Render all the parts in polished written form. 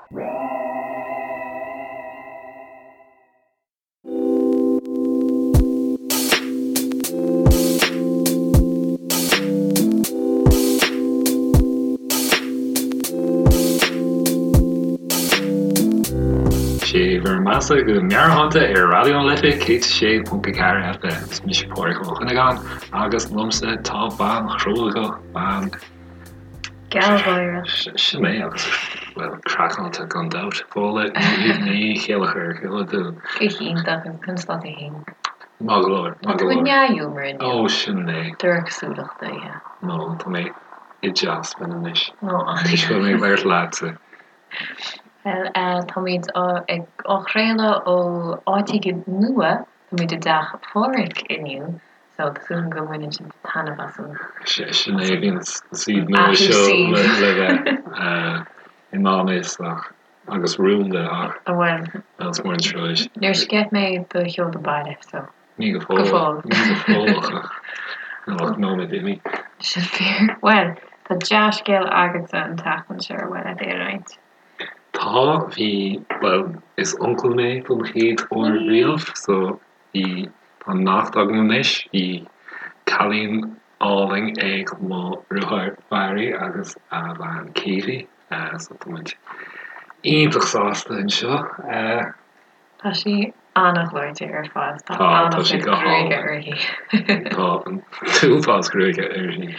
Sé bhur mbeatha go meabhairshláinte ar Raidió na Life 106.4 FM. Is mise Pádraig Ó Cuinneagáin agus liomsa tá bean chróga, bean. Gealgháireach. Sin é agus, bhuel, craiceáilte gan dabht. Fódhla Ní Chéilleachair, cén chaoi a bhfuil tú? Go hiontach, agus conas tá tú fhéin? Maith go leor, maith go leor. Tá tú i ndea-ghiúmar inniu. Ó, sin é. Drochsúileach daoithe. Nó tá mé i dteasbhain anois. Ó, an ea? Toisc go bhfuil mé ag labhairt leatsa. Bhuel, táimid ag á chraoladh ó áit éigin nua, táimid i dteach Pháraic inniu, So, tá súil agam go mbaineann sibh taitneamh as an. Sin é, bhí an suíomh nua seo le bheith i ndán fhios ach, agus rúnda ach, bhuel, is mór an trua. Níor sceith mé do sheoladh baile, so. Ní go fóill. Go fóill. Ní go fóill ach, níl ach nóiméad imithe. Sin fíor. Bhuel, tá dea-scéal agatsa an tseachtain seo ar mhaith leat é a roinnt. Tá, bhí, bhuel, is uncail mé don chéad uair riamh, so Bhí, tá neacht agam anois, bhí cailín álainn ag mo dheartháir Barry agus a bhean Katie, so tá muid iontach sásta anseo. Tá sí an-ghleoite ar fad, tá an-chuid gruaige uirthi. Tá an t-uafás gruaige uirthi.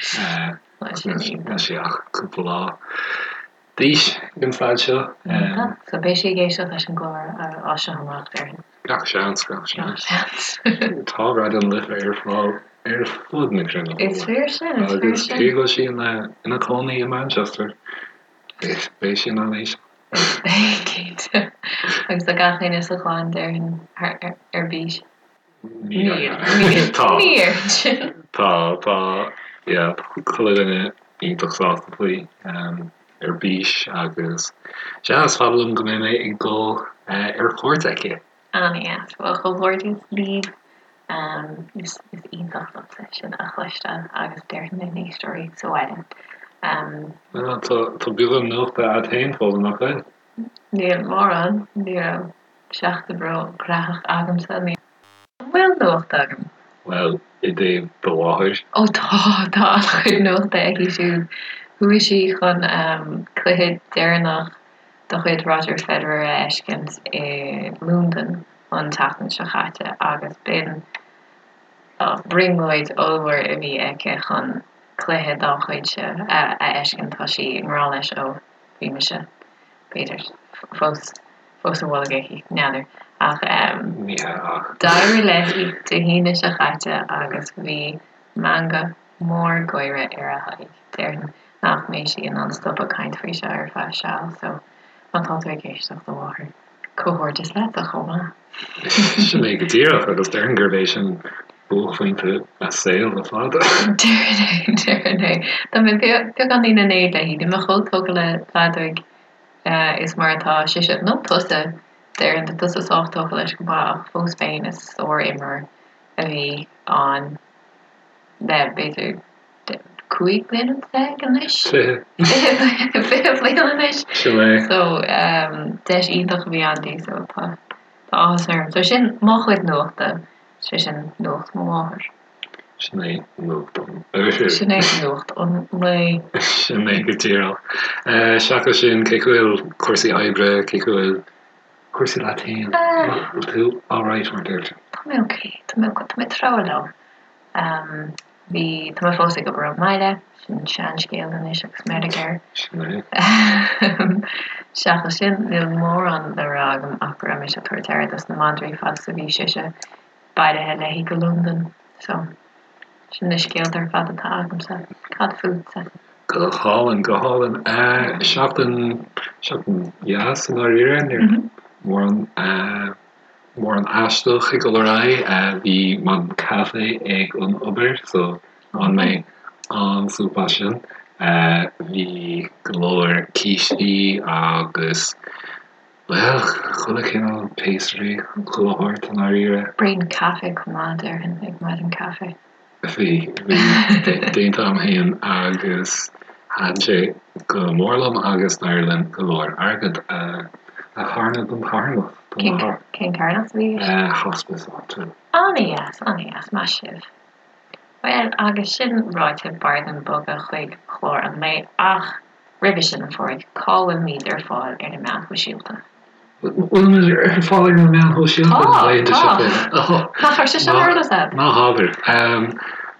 Níl sí ach cúpla lá. d'aois ag an staid seo. Iontach. So beidh sí ag éisteacht leis an gclár as seo amach, déarfainn. Gach seans, gach seans. Gach seans. Tá Raidió na Life ar fáil ar fud na cruinne. Is fíor sin, is fíor sin. Agus cé go bhfuil sí ina cónaí i Manchester, beidh sí in ann éisteacht. Beidh, cinnte. Agus tá gach éinne sa chlann, déarfainn, ar bís. Níl. Tá. Ní déarfainn sin. Tá, tá, yeah, tá chuile dhuine iontach sásta faoi, ar bís agus sea, is fada liom go mbeidh mé ag dul ar cuairt aici. An-dheas. Bhuel, comhghairdeas libh. Is iontach liomsa sin a chloisteáil agus déarfainn na n-éisteoirí sa bhaile. Bhuel, tá beagán nuachta agat féin, Fódhla, nach bhfuil? Níl mórán, ní raibh seachtain ró-ghnóthach agamsa. An bhfuil nuacht agam? Bhuel, i dtaobh do mháthair. Ó tá, tá an-chuid nuachta aici siúd. Chuaigh sí chun cluiche deireanach de chuid Roger Federer a fheiscint i Londain an tseachtain seo chaite agus b'in brionglóid ollmhór a bhí aici chun cluiche dá chuidse a fheiscint. Tá sí i ngrá leis ó bhí mise, b'fhéidir, fós fós sa bholg aici, n'fheadar. Ach Ní hea ach. d'éirigh léi Dé hAoine seo chaite agus bhí meangadh mór gáire ar a haghaidh. Déarfainn nach mbeidh sí in ann stopadh caint faoi seo ar feadh seal so má tá tú ag éisteacht, a mháthair, comhghairdeas leatsa chomh maith. Sin é go díreach agus déarfainn gurb é sin buaicphointe a saoil le fada. Déarfainn é, déarfainn é. Tá mé beagáinín in éad léi, níl mé chomh tógtha le feadóig is mar atá sise, nó tusa, déarfainn, tá tusa sách tógtha leis go maith ach fós féin is sár-imreoir a bhí ann le b'fhéidir 15 bliana anois? 20. 20 bliain anois. Sin é. So deis iontach a bhí ann di so tá áthas orm. So sin mo chuid nuachta, sé sin nuacht mo mháthar. Sin é nuacht an oirthir. Sin é nuacht an lae. Sin é go díreach. Seachas sin, cén chaoi a bhfuil cúrsaí oibre, cén chaoi a bhfuil cúrsaí leat féin? Bhfuil tú alright mar a deirtear? Tá mé ok, tá mé ok, tá mé ag treabhadh liom. Bhí, tá mé fós ag obair ón mbaile, sin seanscéal anois agus meirg air. Sin é. Seachas sin, níl mórán le rá agam ach go raibh mise ag tabhairt aire dos na madraí fad is a bhí sise bailithe léi go Londain. So, sin na scéalta ar fad atá agamsa. Cad fútsa? Go hálainn, go hálainn. Seachtain, seachtain dheas i ndáiríre, ní raibh mórán Mórán aisteach ag dul ar aghaidh. Bhí maidin caife ag an obair so bhain mé an-súp as sin. Bhí go leor cístí agus, bhuel, chuile chineál pastry, chuile shórt i ndáiríre. Braon caife chomh maith, déarfainn, ag maidin caife. Bhí, bhí, déanta agam féin agus. Thaitin sé go mór liom agus d'éirigh linn go leor airgead a charnadh don charthanacht. Cén carthanacht a bhí i gceist? Hospice áitiúil. Ana-dheas, ana-dheas, maith sibh. Bhuel, agus sin ráite, b'fhearr dúinn bogadh chuig clár an lae ach roimhe sin, a Phádraig, cá bhfuilimid ar fáil ar na meáin shóisialta? Bhfuilimid ar fáil ar na meáin shóisialta na laethanta seo féin? Tá, tá. Nach raibh sé seo ar eolas agat? Ná habair.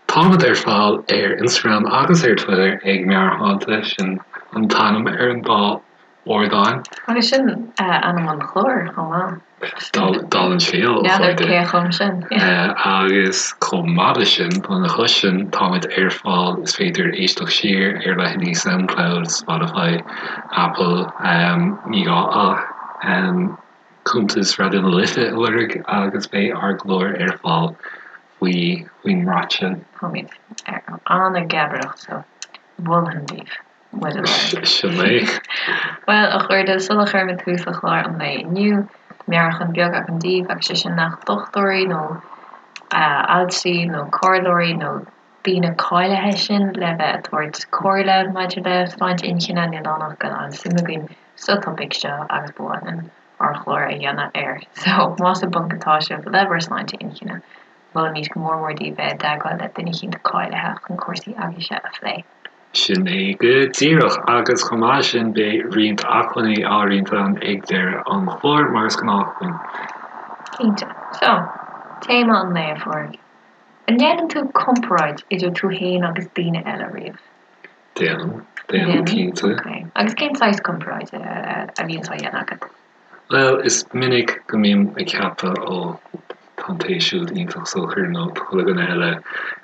Táimid ar fáil ar Instagram agus ar Twitter ag Meabhairshláinte, sin an t-ainm ar an dá ardán. Agus sin ainm an chláir chomh maith. Dála an scéil, a N'fheadar chairde. cé a chum sin. Agus chomh maith leis sin, lena chois sin, táimid ar fáil, is féidir éisteacht siar ar leithéidí Soundcloud, Spotify, Apple, ní gá ach cuntas Raidió na Life a lorg agus beidh ár gclár ar fáil faoi faoin mbrat sin. Táimid an-gheabareacht so mholfainn daoibh. muid a lorg. Sin é. Bhuel, a chairde, sula chuirimid tús le clár an lae inniu, meabhrúchán beag agam daoibh, agus sé sin nach dochtúirí nó altraí nó comhairleoirí nó daoine cáilithe sinn le bheith ag tabhairt comhairle maidir le sláinte inchinne, níl ann ach go bhfuil an-suim againn sa topaic seo agus ba mhaith linn ár chlár a dhéanamh air. So, más i bponc atá sibh le bhur sláinte inchinne, molaimid go mór mór daoibh bheith i dteagmháil le duine eicínt cáilithe chun cúrsaí agaibhse a phlé. Sin é go díreach, agus chomh maith leis sin beidh roinnt acmhainní á roinnt againn ag deireadh an chláir, mar is gnách linn. Cinnte. So, téama an lae, a Phádraig. An ndéanann tú comparáid idir tú fhéin agus daoine eile riamh? Déanaim, déanaim, cinnte. Ok. Agus cén saghas comparáide a bhíonns á dhéanamh agat? Bhuel, is minic go mbím ag ceapadh, ó, tá an té siúd iontach socair nó tá chuile dhuine eile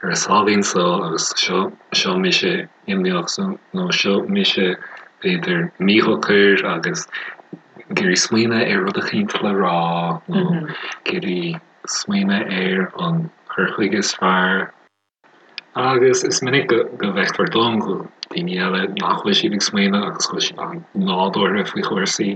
ar a sáimhín só agus seo, seo mise imníoch nó seo mise b'fhéidir míshocair agus ag iarraidh smaoineamh ar rud eicínt le rá nó ag iarraidh smaoineamh ar an chur chuige is fearr. Agus is minic go bhfeictear dom go bhfuil daoine eile nach bhfuil siad ag smaoineamh agus go bhfuil siad an-nádúrtha faoi chúrsaí.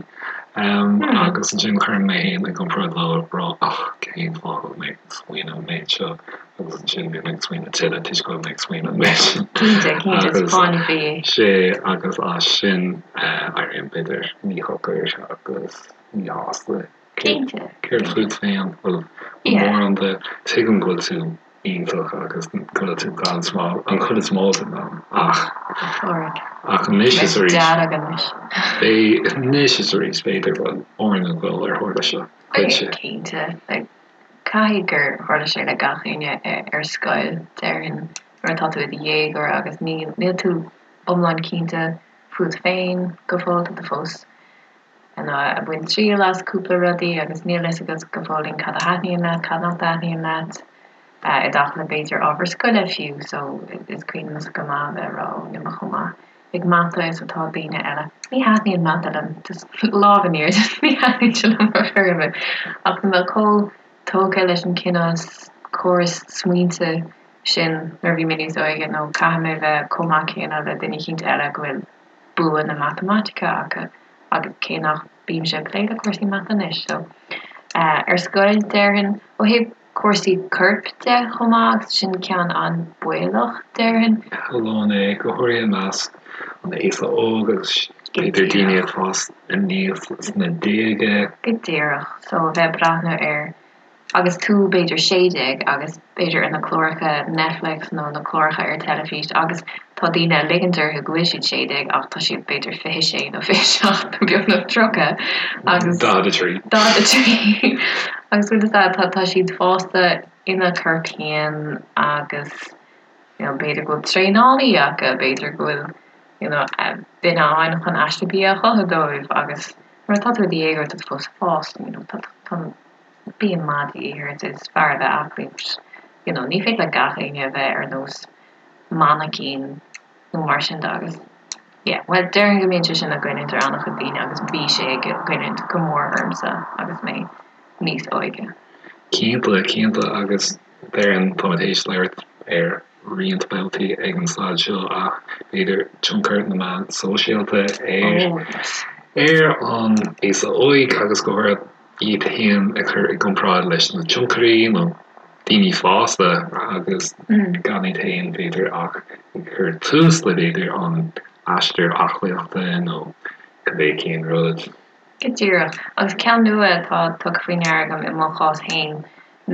Agus ansin cuirim mé féin i gcomparáid leo ag rá ach cén fáth go bhfuil mé ag smaoineamh an méid seo agus ansin bím ag smaoineamh tuilleadh toisc go bhfuil mé ag smaoineamh an méid sin. Cinnte, cinnte, is fáinne fí é. Sea, agus as sin éirím b'fhéidir míshocair agus míshásta. Cinnte. Céard fút féin? Bhfuil mórán de, tuigim go bhfuil tú iontach agus go bhfuil tú gan smál an chuid is mó den am ach ach anois is arís beidh anois is arís b'fhéidir go bhfuil orainn a dhul ar tharla seo duitse. Cinnte, caithfidh gur tharla sé le gach éinne ar scoil, déarfainn, nuair atá tú i do dhéagóir agus níl tú iomlán cinnte fút féin go fóill, tá tú fós ag baint triail as cúpla rudaí agus níl fhios agat go fóillín cad a thaitníonn leat, cad nach dtaitníonn leat, i dtaca le b'fhéidir ábhar scoile fiú, so is cuimhin liomsa go maith a bheith ag rá ó níl mé chomh maith ag mata is atá daoine eile. Ní thaitníonn mata liom, just lámh in airde, ní thaitníonn sé liom ar chor ar bith, ach tá mé chomh tógtha leis an cineál córas smaointe sin nuair a bhí mé níos óige nó caithfidh mé bheith chomh maith céanna le duine eicínt eile go bhfuil bua na matamaitice acu agus cé nach bímse ag plé le cúrsaí mata anois so ar scoil déarfainn ó thaobh cúrsaí coirp de chomh maith agus sin ceann an-baolach déarfainn. Tharlódh é, go háirithe i measc an aosa óg agus b'fhéidir daoine ag fás aníos sna déaga. Go díreach, so a bheith ag breathnú ar agus tú b'fhéidir 16 agus b'fhéidir ar na cláracha Netflix nó na cláracha ar teilifís agus tá daoine ag ligint orthu go bhfuil siad 16 ach tá siad b'fhéidir 26 nó 27 nó beagnach 30 agus. 43. 43 agus bhfuil fhios a'd tá tá siad fásta ina gcorp féin agus you know b'fhéidir go bhfuil traenálaí acu, b'fhéidir go bhfuil you know duine ann chun aiste bia a chothú dóibh agus nuair atá tú i do dhéagóir tá tú fós ag fás you know tá tá bia maith de dhíth ort, is fearr a bheith aclaí but you know ní féidir le gach éinne a bheith ar nós mainicín nó mar sin de agus yeah bhuel déarfainn go mbíonn sé sin ag goilliúint ar an-chuid daoine agus bhí sé ag goilliúint go mór ormsa agus mé níos óige. Cinnte, cinnte agus déarfainn táimid théis labhairt ar roinnt babhtaí ag an staid seo ach b'fhéidir tionchar na meán sóisialta ar Oh yes. ar an aosa óig agus go háirithe iad féin a chur i gcomparáid leis na tionchairí nó daoine fásta agus gan iad féin b'fhéidir ach ag cur tús le b'fhéidir an. aistear aclaíochta nó cibé cén rud. Go díreach. Agus ceann nua atá tugtha faoi ndeara agam i mo chás féin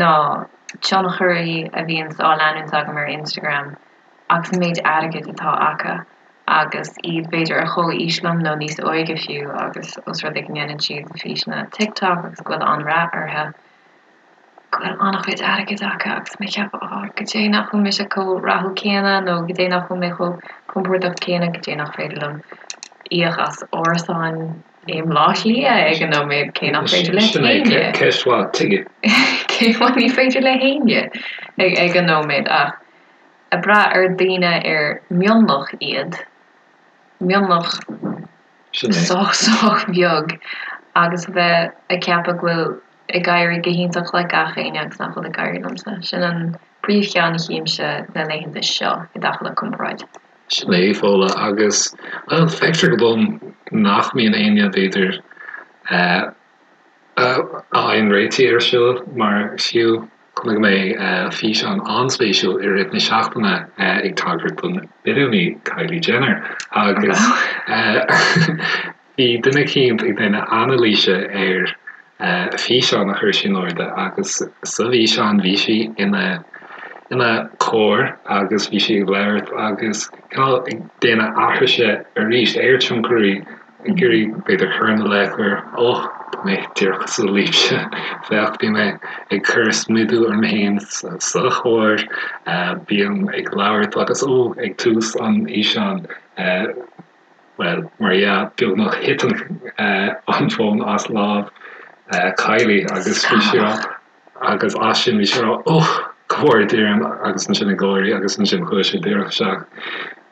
ná tionchairí a bhíonns á leanúint agam ar Instagram agus an méid airgid atá acu agus iad b'fhéidir ar chomh-aois liom nó níos óige fiú agus os rud é go ndéanann siad físeanna TikTok agus go bhfuil an-rath orthu, go bhfuil an-chuid airgid acu agus mé ag ceapadh oh goidé nach bhfuil mise chomh rathúil céanna nó goidé nach bhfuil mé chomh compordach céanna, goidé nach féidir liom íoc as árasán i mBleá Cliath ag an nóiméad, cé nach féidir le Sin é, héinne. ceist mhaith, tuige? Cé ní féidir le héinne ag an nóiméad ach ag brath ar daoine ar mionlach iad, mionlach Sin é. sách sách beag agus a bheith ag ceapadh go bhfuil ag éirí go hiontach le gach éinne agus nach bhfuil ag éirí liomsa. Sin an príomhcheann a chímse na laethanta seo i dtaca le comparáid. Sin é, Fódhla, agus, bhuel, feictear dom nach mbíonn éinne, b'fhéidir, a fhaigheann réitigh air seo, mar fiú chonaic mé físeán an-spéisiúil i rith na seachtaine ag tagairt don billiúnaí Kylie Jenner agus Bhí duine eicínt ag déanamh anailíse ar fhíseán a chuir sí in airde agus sa bhfíseán bhí sí ina ina carr agus bhí sí ag labhairt agus cineál ag déanamh aithrise arís ar tionchairí ag iarraidh b'fhéidir cur ina leith gur oh tá mé díreach cosúil libhse féach bím ag cur smidiú orm féin sa charr bím ag labhairt agus ó ag tús an fhíseáin Bhuel, mar dhea, beagnach thit an fón as lámh Kylie agus bhí sí rá, agus as sin bhí sí rá, oh, go bhfóire Dia orm agus ansin ag gáirí agus ansin chuaigh sé díreach isteach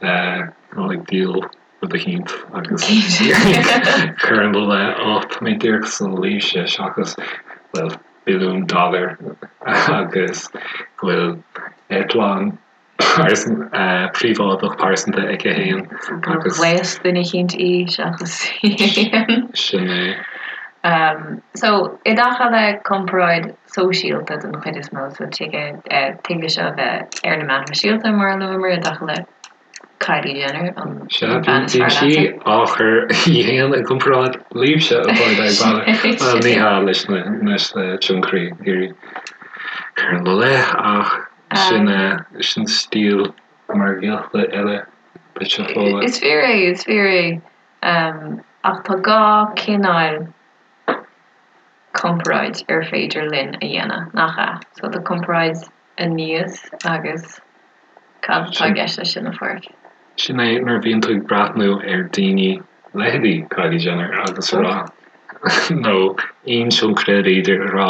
ag díol rud eicínt agus cur ina leith, oh, tá mé díreach cosúil libhse seachas, bhuel, billiún dollar agus go bhfuil eitleán príobháideach pearsanta aici féin agus. Ghléas duine eicínt í seachas í féin. Sin é. So, i dtaca le comparáid sóisialta den chuid is mó, so tig tig leis seo a bheith ar na meáin shóisialta mar a luamar i dtaca le Kylie Jenner, an bhean is fearr leatsa. Bíonn sí á chur í féin i gcomparáid libhse a chairde ag baile. Bhuel, ní hea leis na tionchairí ag iarraidh cur ina leith ach Sin sin stíl margaíochta eile duit a Fódhla. Is fíor é, is fíor é. Ach tá gá cineáil comparáid ar féidir linn a dhéanamh, nach ea? So tá comparáid aníos agus cad atá i gceist leis sin, a Pháraic? Sin é nuair a bhíonn tú ag breathnú ar daoine, leithéidí Kylie Jenner agus a rá, nó aon tionchaire b'fhéidir, a rá,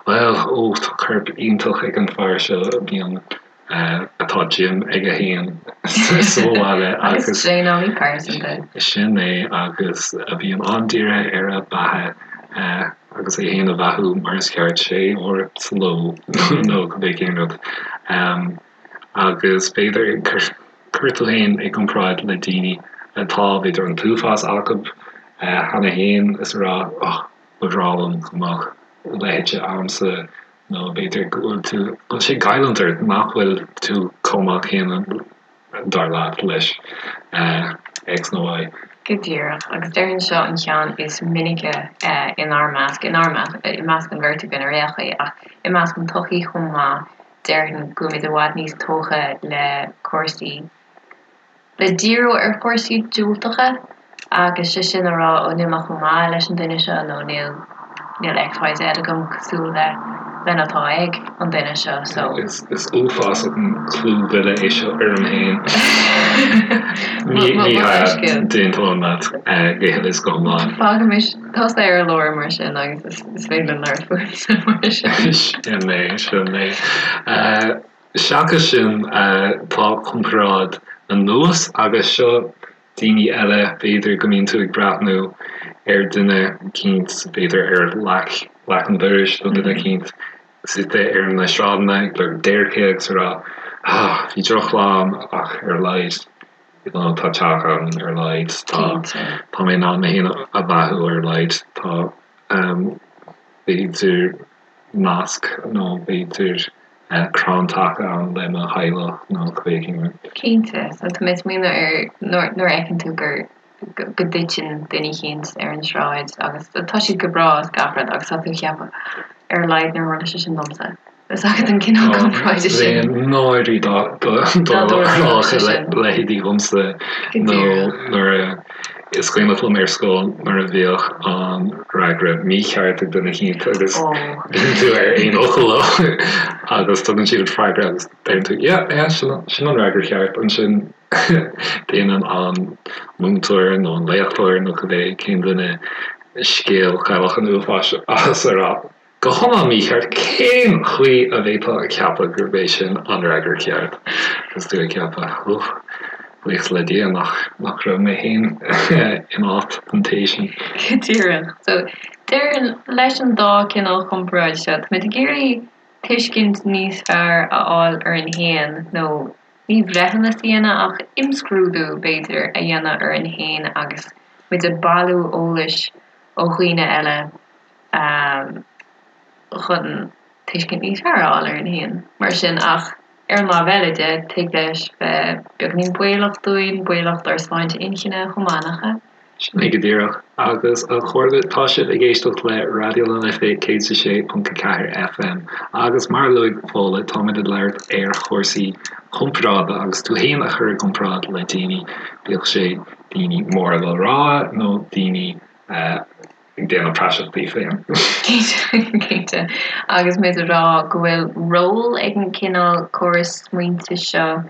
bhuel, ó, tá corp iontach ag an fear seo, bíonn, atá gym aige féin sa bhaile agus. Agus traenálaí pearsanta. Sin é, agus a bhíonn an-dírithe ar a beatha agus é féin a bheathú mar is ceart, sé uair sa ló nó cibé cén rud. Agus b'fhéidir cur tú féin i gcomparáid le daoine atá, b'fhéidir, an t-uafás acu cheana féin is a rá, oh, ba bhreá liom go mbeadh a leithéid a'msa nó b'fhéidir go bhfuil tú, go bhfuil sé ag goilliúint ort nach bhfuil tú chomh maith céanna dar leat leis X nó Y. Go díreach, agus déarfainn seo an ceann is minice inár measc, inár measc, i measc an bheirt againn ar aon chaoi, ach i measc an tsochaí chomh maith, déarfainn go bhfuilimid i bhfad níos tógtha le cúrsaí, le díriú ar chúrsaí diúltacha agus sé sin a rá, ó níl mé chomh maith leis an duine seo nó níl, níl XYZ agam cosúil le, lena atá ag an duine seo so. Is, is uafásach an clúmhilleadh é seo orm féin. Ní, ní hea, d'aontóinn leat go huile is go hiomlán. Fágaimis tusa ar lár mar sin agus is féidir linn labhairt fútsa mar sin. Sin é, sin é. Seachas sin, tá comparáid anuas agus seo daoine eile, b'fhéidir go mbíonn tú ag breathnú ar duine eicínt, b'fhéidir ar leac, leac an dorais nó duine eicínt suite ar na sráideanna ag lorg déirce agus ag rá, ah, bhí drochlá agam ach ar a laghad, you know, tá teach agam ar a laghad, tá, tá mé in ann mé féin a bheathú ar a laghad, tá, b'fhéidir nasc nó b'fhéidir. Crann taca ann le mo theaghlach nó cibé cén rud. Cinnte, so tá mé ag smaoineamh ar nuair a fheiceann tú gur go dtiteann duine eicínt ar an sráid agus tá siad go breá is gach rud agus tá tú ag ceapadh ar a laghad níor tharla sé sin domsa. Is agat an cineál comparáide sin. Bheinn náirithe dá dtarlódh a leithéidí dhomsa nó nuair a Is cuimhneach liom ar scoil nuair a bhíodh an fhreagra mícheart ag duine eicínt agus bíonn tú ar aon fhocal leo agus tugann siad an freagra agus deireann tú yeah, yeah, sin an fhreagra cheart. Ansin déanann an múinteoir nó an léachtóir nó cibé cén duine scéal Chailleach an Uafáis as a rá Go hiomlán mícheart, cén chaoi a bhféadfá a cheapadh gurb é sin an fhreagra ceart? Agus tú ag ceapadh, oh, buíochas le Dia nach nach raibh mé féin in áit an té sin. Go díreach. So, déarfainn, leis an dá cineál chomparáid seo, táimid ag iarraidh tuiscint níos fearr a fháil orainn féin, nó ní breithiúnas a dhéanamh ach imscrúdú, b'fhéidir, a dhéanamh orainn féin agus muid ag bailiú eolais ó dhaoine eile. chun tuiscint níos fearr a fháil orainn féin. Mar sin, ach ar an lámh eile de, tig leis bheith beagáinín baolach dúinn, baolach dár sláinte inchinne chomh maith, nach ea? Sin é go díreach. Agus a chairde, tá sibh ag éisteacht le Raidió na Life 106.4 FM agus mar a luaigh Fódhla, táimid ag labhairt ar chúrsaí comparáide agus tú féin a chur i gcomparáid le daoine, bíodh sé daoine móra le rá nó daoine ag déanamh praiseach díobh féin. Cinnte. Agus muid ag rá go bhfuil ról ag an cineál córas smaointe seo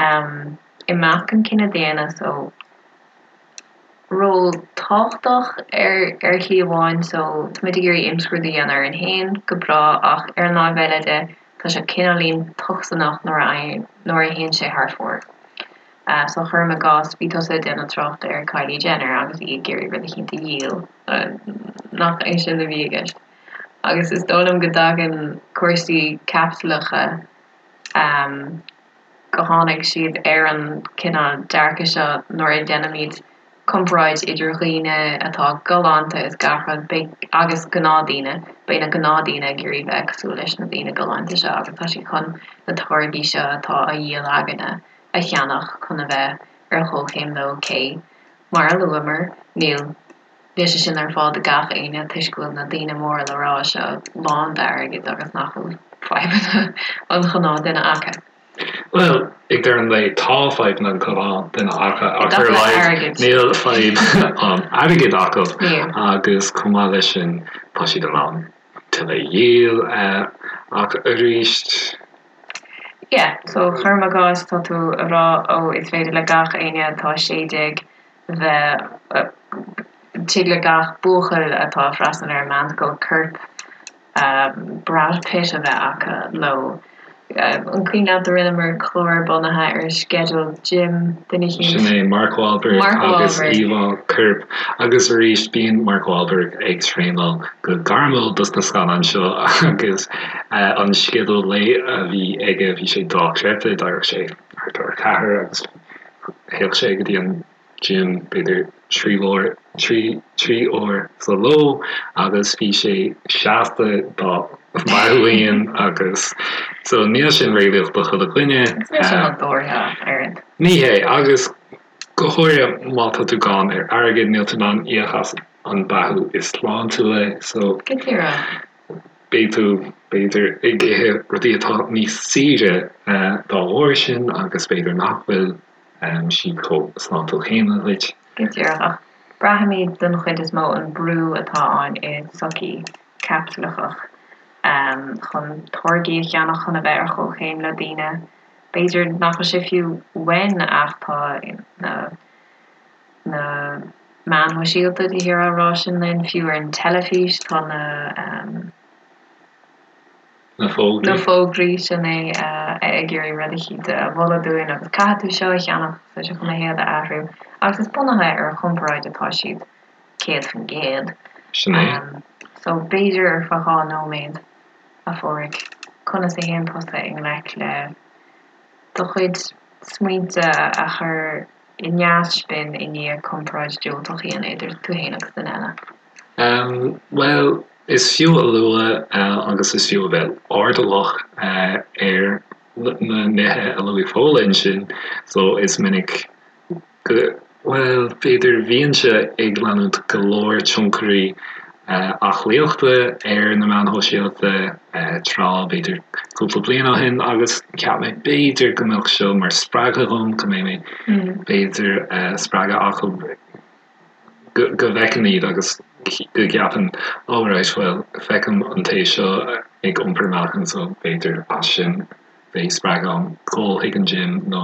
i measc an cine daonna, so ról tábhachtach ar ar shlí amháin, so táimid ag iarraidh imscrúdú a dhéanamh orainn féin, go breá, ach ar an láimh eile de, tá sé cineáilín tocsaineach nuair a nuair a théann sé thar fóir. So cuirim i gcás, bhí tusa ag déanamh tráchta ar Kylie Jenner agus í ag iarraidh rud eicínt a dhíol, nach é sin a bhí i gceist? Agus is dóigh liom go dtagann cúrsaí caipitleacha, go tháinig siad ar an cineál dearcadh seo nuair a dhéanaimid comparáid idir dhaoine atá galánta is gach rud, beidh, agus gnáthdaoine, beidh na gnáthdaoine ag iarraidh bheith cosúil leis na daoine galánta seo agus tá siad chun na táirgí seo atá á dhíol againne a cheannach chun a bheith ar chomhchéim leo cé, mar a luamar, níl sé sin ar fáil do gach éinne toisc go bhfuil na daoine móra le rá seo lán d'airgead agus nach bhfuil fadhbanna an ghnáthduine acu. Bhuel, ag deireadh an lae tá fadhbanna an ghnáthduine acu ach ar a laghad níl fadhb an airgid acu agus chomh maith leis sin tá siad in ann tuilleadh a dhíol ach arís Yeah, so cuirim i gcás tá tú a rá ó is féidir le gach éinne atá 16 bheith, tig le gach buachaill atá ag freastal ar an meánscoil corp Brad Pitt a bheith acu nó an cuimhin leat a rinneamar clár bunaithe ar sceideal gym duine eicínt? Sin é Mark Wahlberg Mark agus Wahlberg. íomhá coirp. Agus arís bíonn Mark Wahlberg ag traenáil go gairmiúil dos na scannáin seo agus an sceideal lae a bhí aige bhí sé dochreidte, d'éireodh sé thart ar a ceathair agus théadh sé go dtí an gym b'fhéidir 3 uair, 3, 3 uair sa ló agus bhí sé seasta dá mheáchan agus so níl sin réalaíoch do chuile dhuine. Agus níl sé nádúrtha ach oiread. Ní hé, agus go háirithe má tá tú gann ar airgead níl tú in ann íoc as an beathú is sláintiúla so. Go díreach. Beidh tú, b'fhéidir, ag ithe rudaí atá níos saoire dá bharr sin agus b'fhéidir nach bhfuil siad chomh sláintiúil céanna duit. Go díreach, ach braithimid den chuid is mó an brú atá ann i sochaí caipitleachach chun táirgí a cheannach chun a bheith ar chomhchéim le daoine. B'fhéidir nach bhfuil sé fiú uainn ach tá na na meáin shóisialta de shíor á rá sin linn, fiú ar an teilifís tá na. Na fógraí. Na fógraí, sin é, ag iarraidh rud eicínt a mholadh dúinn agus caithfidh tú seo a cheannach tá sé chun do shaol a athrú. Agus is bunaithe ar chomparáid atá siad, 100%. Sin é. So, b'fhéidir ar feadh 2 nóiméad, a Pháraic, conas a théann tusa i ngleic le do chuid smaointe a chur i neaspin i ndiaidh comparáid diúltach a dhéanamh idir tú féin agus duine eile? Bhuel. Is fiú a lua agus is fiú a bheith airdeallach ar na nithe a luaigh Fódhla ansin, so is minic go, bhuel, b'fhéidir bhínnse ag leanúint go leor tionchairí aclaíochta ar na meáin shóisialta tráth, b'fhéidir cúpla bliain ó shin agus cheap mé b'fhéidir go mbeadh seo mar spreagadh dhom, go mbeidh mé b'fhéidir spreagadh acu. go bhfeicim iad agus go gceapaim oh right bhuel feicim an té seo ag iompar meáchan so b'fhéidir as sin beidh spreagadh agam dul chuig an gym nó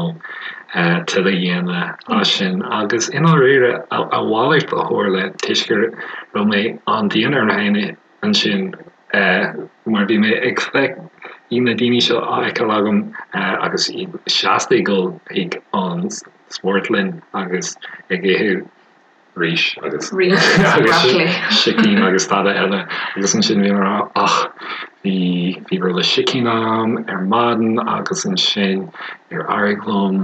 tuilleadh a dhéanamh as sin agus i ndáiríre a mhalairt a tharla toisc go raibh mé an-dian orm féin ansin mar bhí mé ag feic bhí na daoine seo á fheiceáil agam agus iad seasta ag dul chuig an spórtlann agus ag ithe rís agus sicín agus tada eile agus ansin bhí mé ag rá ach bhí bhí rolla sicín agam ar maidin agus ansin níor éirigh liom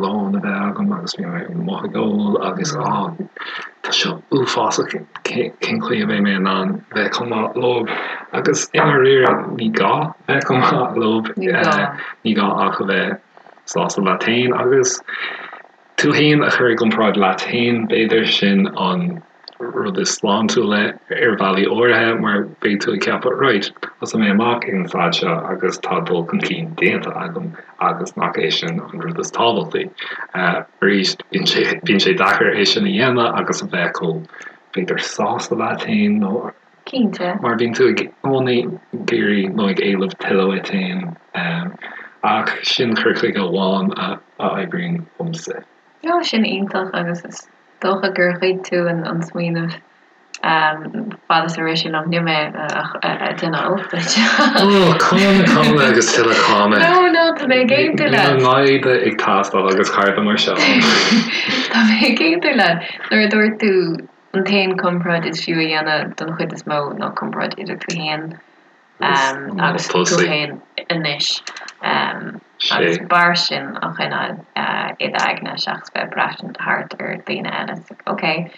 lón a bheith agam agus bhí mé amuigh ag ól agus á tá seo uafásach cén chaoi a mbeidh mé in ann bheith chomh maith leo agus i ndáiríre ní gá bheith chomh maith leo ní gá ach a bheith sásta leat féin agus tú féin a chur i gcomparáid leat féin, b'fhéidir, sin an rud is sláintiúla ar bhealaí áirithe mar beidh tú ag ceapadh right, thosaigh mé amach ag an staid seo agus tá dul chun cinn déanta agam agus nach é sin an rud is tábhachtaí. Arís, bíonn sé, bíonn sé deacair é sin a dhéanamh agus a bheith chomh, b'fhéidir, sásta leat féin nó. Cinnte. Mar bíonn tú i gcónaí ag iarraidh nó ag éileamh tuilleadh uait féin. Ach sin cur chuige amháin a oibríonn domsa. Ó, sin iontach agus is dócha gur ghoid tú an smaoineamh fad is a rith sé liom. Níl mé ag déanamh olc duit. Ó, cáineadh, cáineadh agus tuilleadh cáineadh. No, no, tá mé ag aontú leat. Níl an maighde ag teastáil agus cairde mar seo. Tá mé ag aontú leat. Nuair a dúirt tú An t-aon comparáid is fiú a dhéanamh don chuid is mó ná comparáid idir tú féin agus tú féin anois agus b'fhearr sin a choinneáil i d'aigne seachas bheith ag braistint thart ar daoine eile. It's like, ok,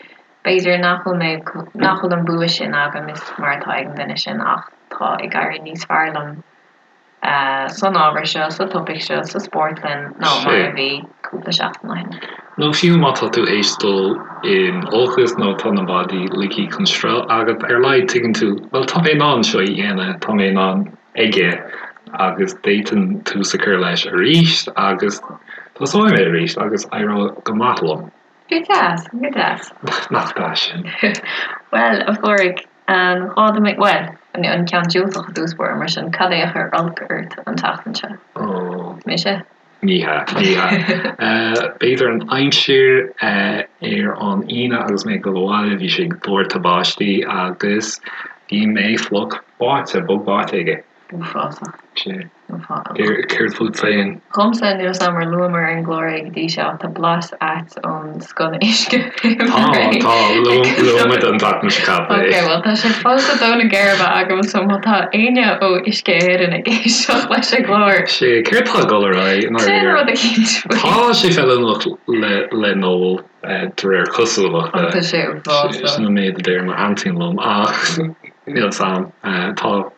b'fhéidir nach bhfuil mé, nach bhfuil an bua sin agam is mar atá ag an duine sin ach tá ag éirí níos fearr liom san ábhar seo, sa topaic seo, sa spórtlann ná mar a bhí cúpla seachtain ó shin. Nó fiú má tá tú théis dul in olcas nó tá na maidí ligthe chun sruth agat, ar a laghad tuigeann tú, bhuel tá mé in ann seo a dhéanamh, tá mé in ann aige agus d'fhéadfainn tús a chur leis arís agus tosóidh mé arís agus éireoidh go maith liom. Go deas, go deas. Nach deas sin? Bhuel, a Phádraig, An gá dom é, bhuel, an ceann diúltach i dtús báire, mar sin, cad é a chuir olc ort an tseachtain seo? Ó. Mise? Ní hea, ní hea. B'fhéidir an aimsir ar an Aoine agus mé ag dul abhaile, bhí sé ag doirteadh báistí agus bhí mé fliuch báite, bog báite aige. Uafásach. Sea. Céard fút féin? Dhomsa, níl 's a'm ar luamar ar an gclár é go dtí seo ach tá blas ait ón sconna-uisce Tá, tá, luaigh muid an tseachtain seo caite é. Ok, bhuel tá sé fós ag dó na geirbe agam so má tá éinne ó Uisce Éireann ag éisteacht leis an gclár. Sea, céard tá ag dul ar aghaidh i ndáiríre? Déan rud eicínt faoi. Tá sé feiliúnach le n-ól de réir cosúlachta. Tá sé uafásach. Sin an méid a deir m'aintín liom ach níl 's a'm. Tá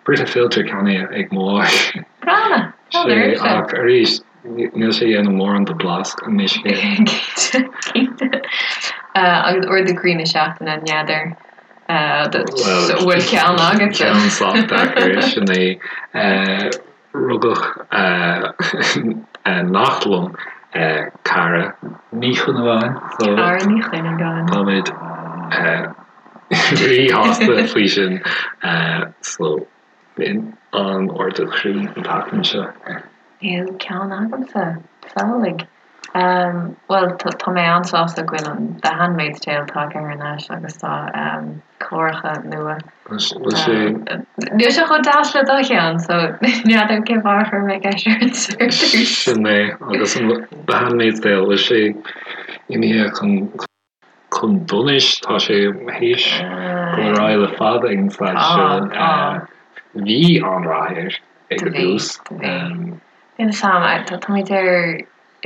Brita filter ceannaithe ag mo mháthair. Breá! Sea, ach arís, níl sé ag déanamh mórán do blas an uisce. Cinnte, cinnte. Agus ardú croí na seachtaine, n'fheadar an bhfuil ceann agatsa? Ceann sách deacair, sin é. Rugadh neacht liom, Cara Ní Chuinneagáin. Cara Ní Chuinneagáin. Táimid ríshásta faoi sin. So, b'in an ardú croí an tseachtain seo. Níl ceann agamsa. Samhlaigh. Bhuel, tá mé an-sásta go bhfuil an The Handmaid's Tale tagtha thar n-ais agus tá cláracha nua. Bhfuil sé. Níl sé chomh deas le do cheann, so n'fheadar cén fáth ar chuir mé ceist ort ar dtús. Sin é, agus an The Handmaid's Tale, bhfuil sé imithe chun. chun donais. Tá sé théis dul ar aghaidh le fada ag an staid seo. Bhí an-rath air ag an dtús. Bhí. Níl 'fhios a'm, táimid ar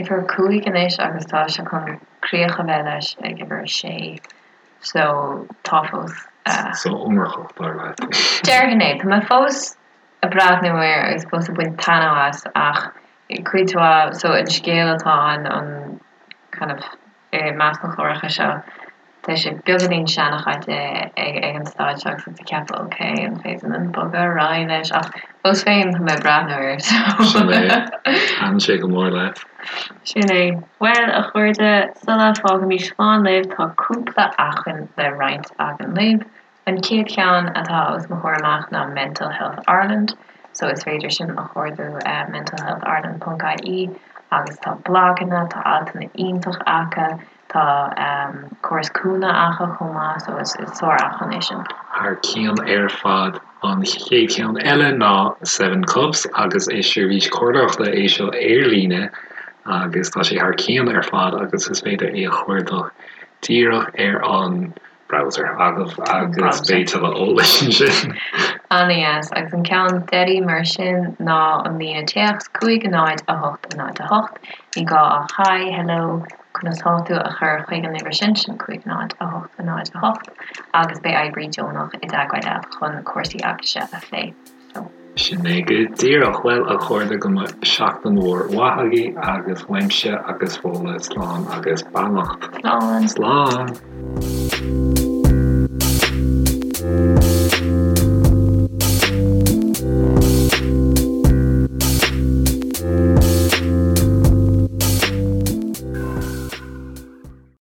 uimhir 5 anois agus tá sé chun críoch a bheith leis ag uimhir 6 so tá fós. So iomarcach dar leat. Déarfainn é. Tá mé fós ag breathnú air agus fós ag baint taitneamh as ach cuid mhaith, so an scéal atá ann, an kind of i measc na chláracha seo, tá sé beagáinín seanchaite ag ag an staid seo agus ag ceapadh ok, an féidir linn bogadh ar aghaidh leis ach fós féin tá mé ag breathnú air so. Sin é. Thaitin sé go mór leat. Sin é. Bhuel, a chairde, sula bhfágaimis slán libh, tá cúpla acmhainn le roinnt againn libh. An chéad cheann atá os mo chomhair amach ná Mental Health Ireland, so is féidir sin a chuardú mentalhealthireland ponc ie agus tá blaganna, tá altanna iontach acu, tá córas cúnamh acu chomh maith, so is sár-acmhainn é sin. Thar cionn ar fad. An chéad cheann eile ná Seven Cups agus is seirbhís comhairleoireachta é seo ar líne agus tá sé thar cionn ar fad agus is féidir é a chuardach díreach ar an browser agaibh agus beidh tuilleadh eolais ansin. Ana-dheas. Agus an ceann deiridh mar sin ná an líne téacs 5 0 8 0 8. Ní gá ach Hi, Hello, conas tá tú a chur chuig an uimhir sin, sin 5 0 8 0 8, agus beidh oibrí deonach i dteagmháil leat chun cúrsaí eaglaise a phlé. So. Sin é go díreach. Bhuel, a chairde, go mbeidh seachtain mhór mhaith agaibh agus uaimse agus Fódhla slán agus beannacht. Slán. Slán.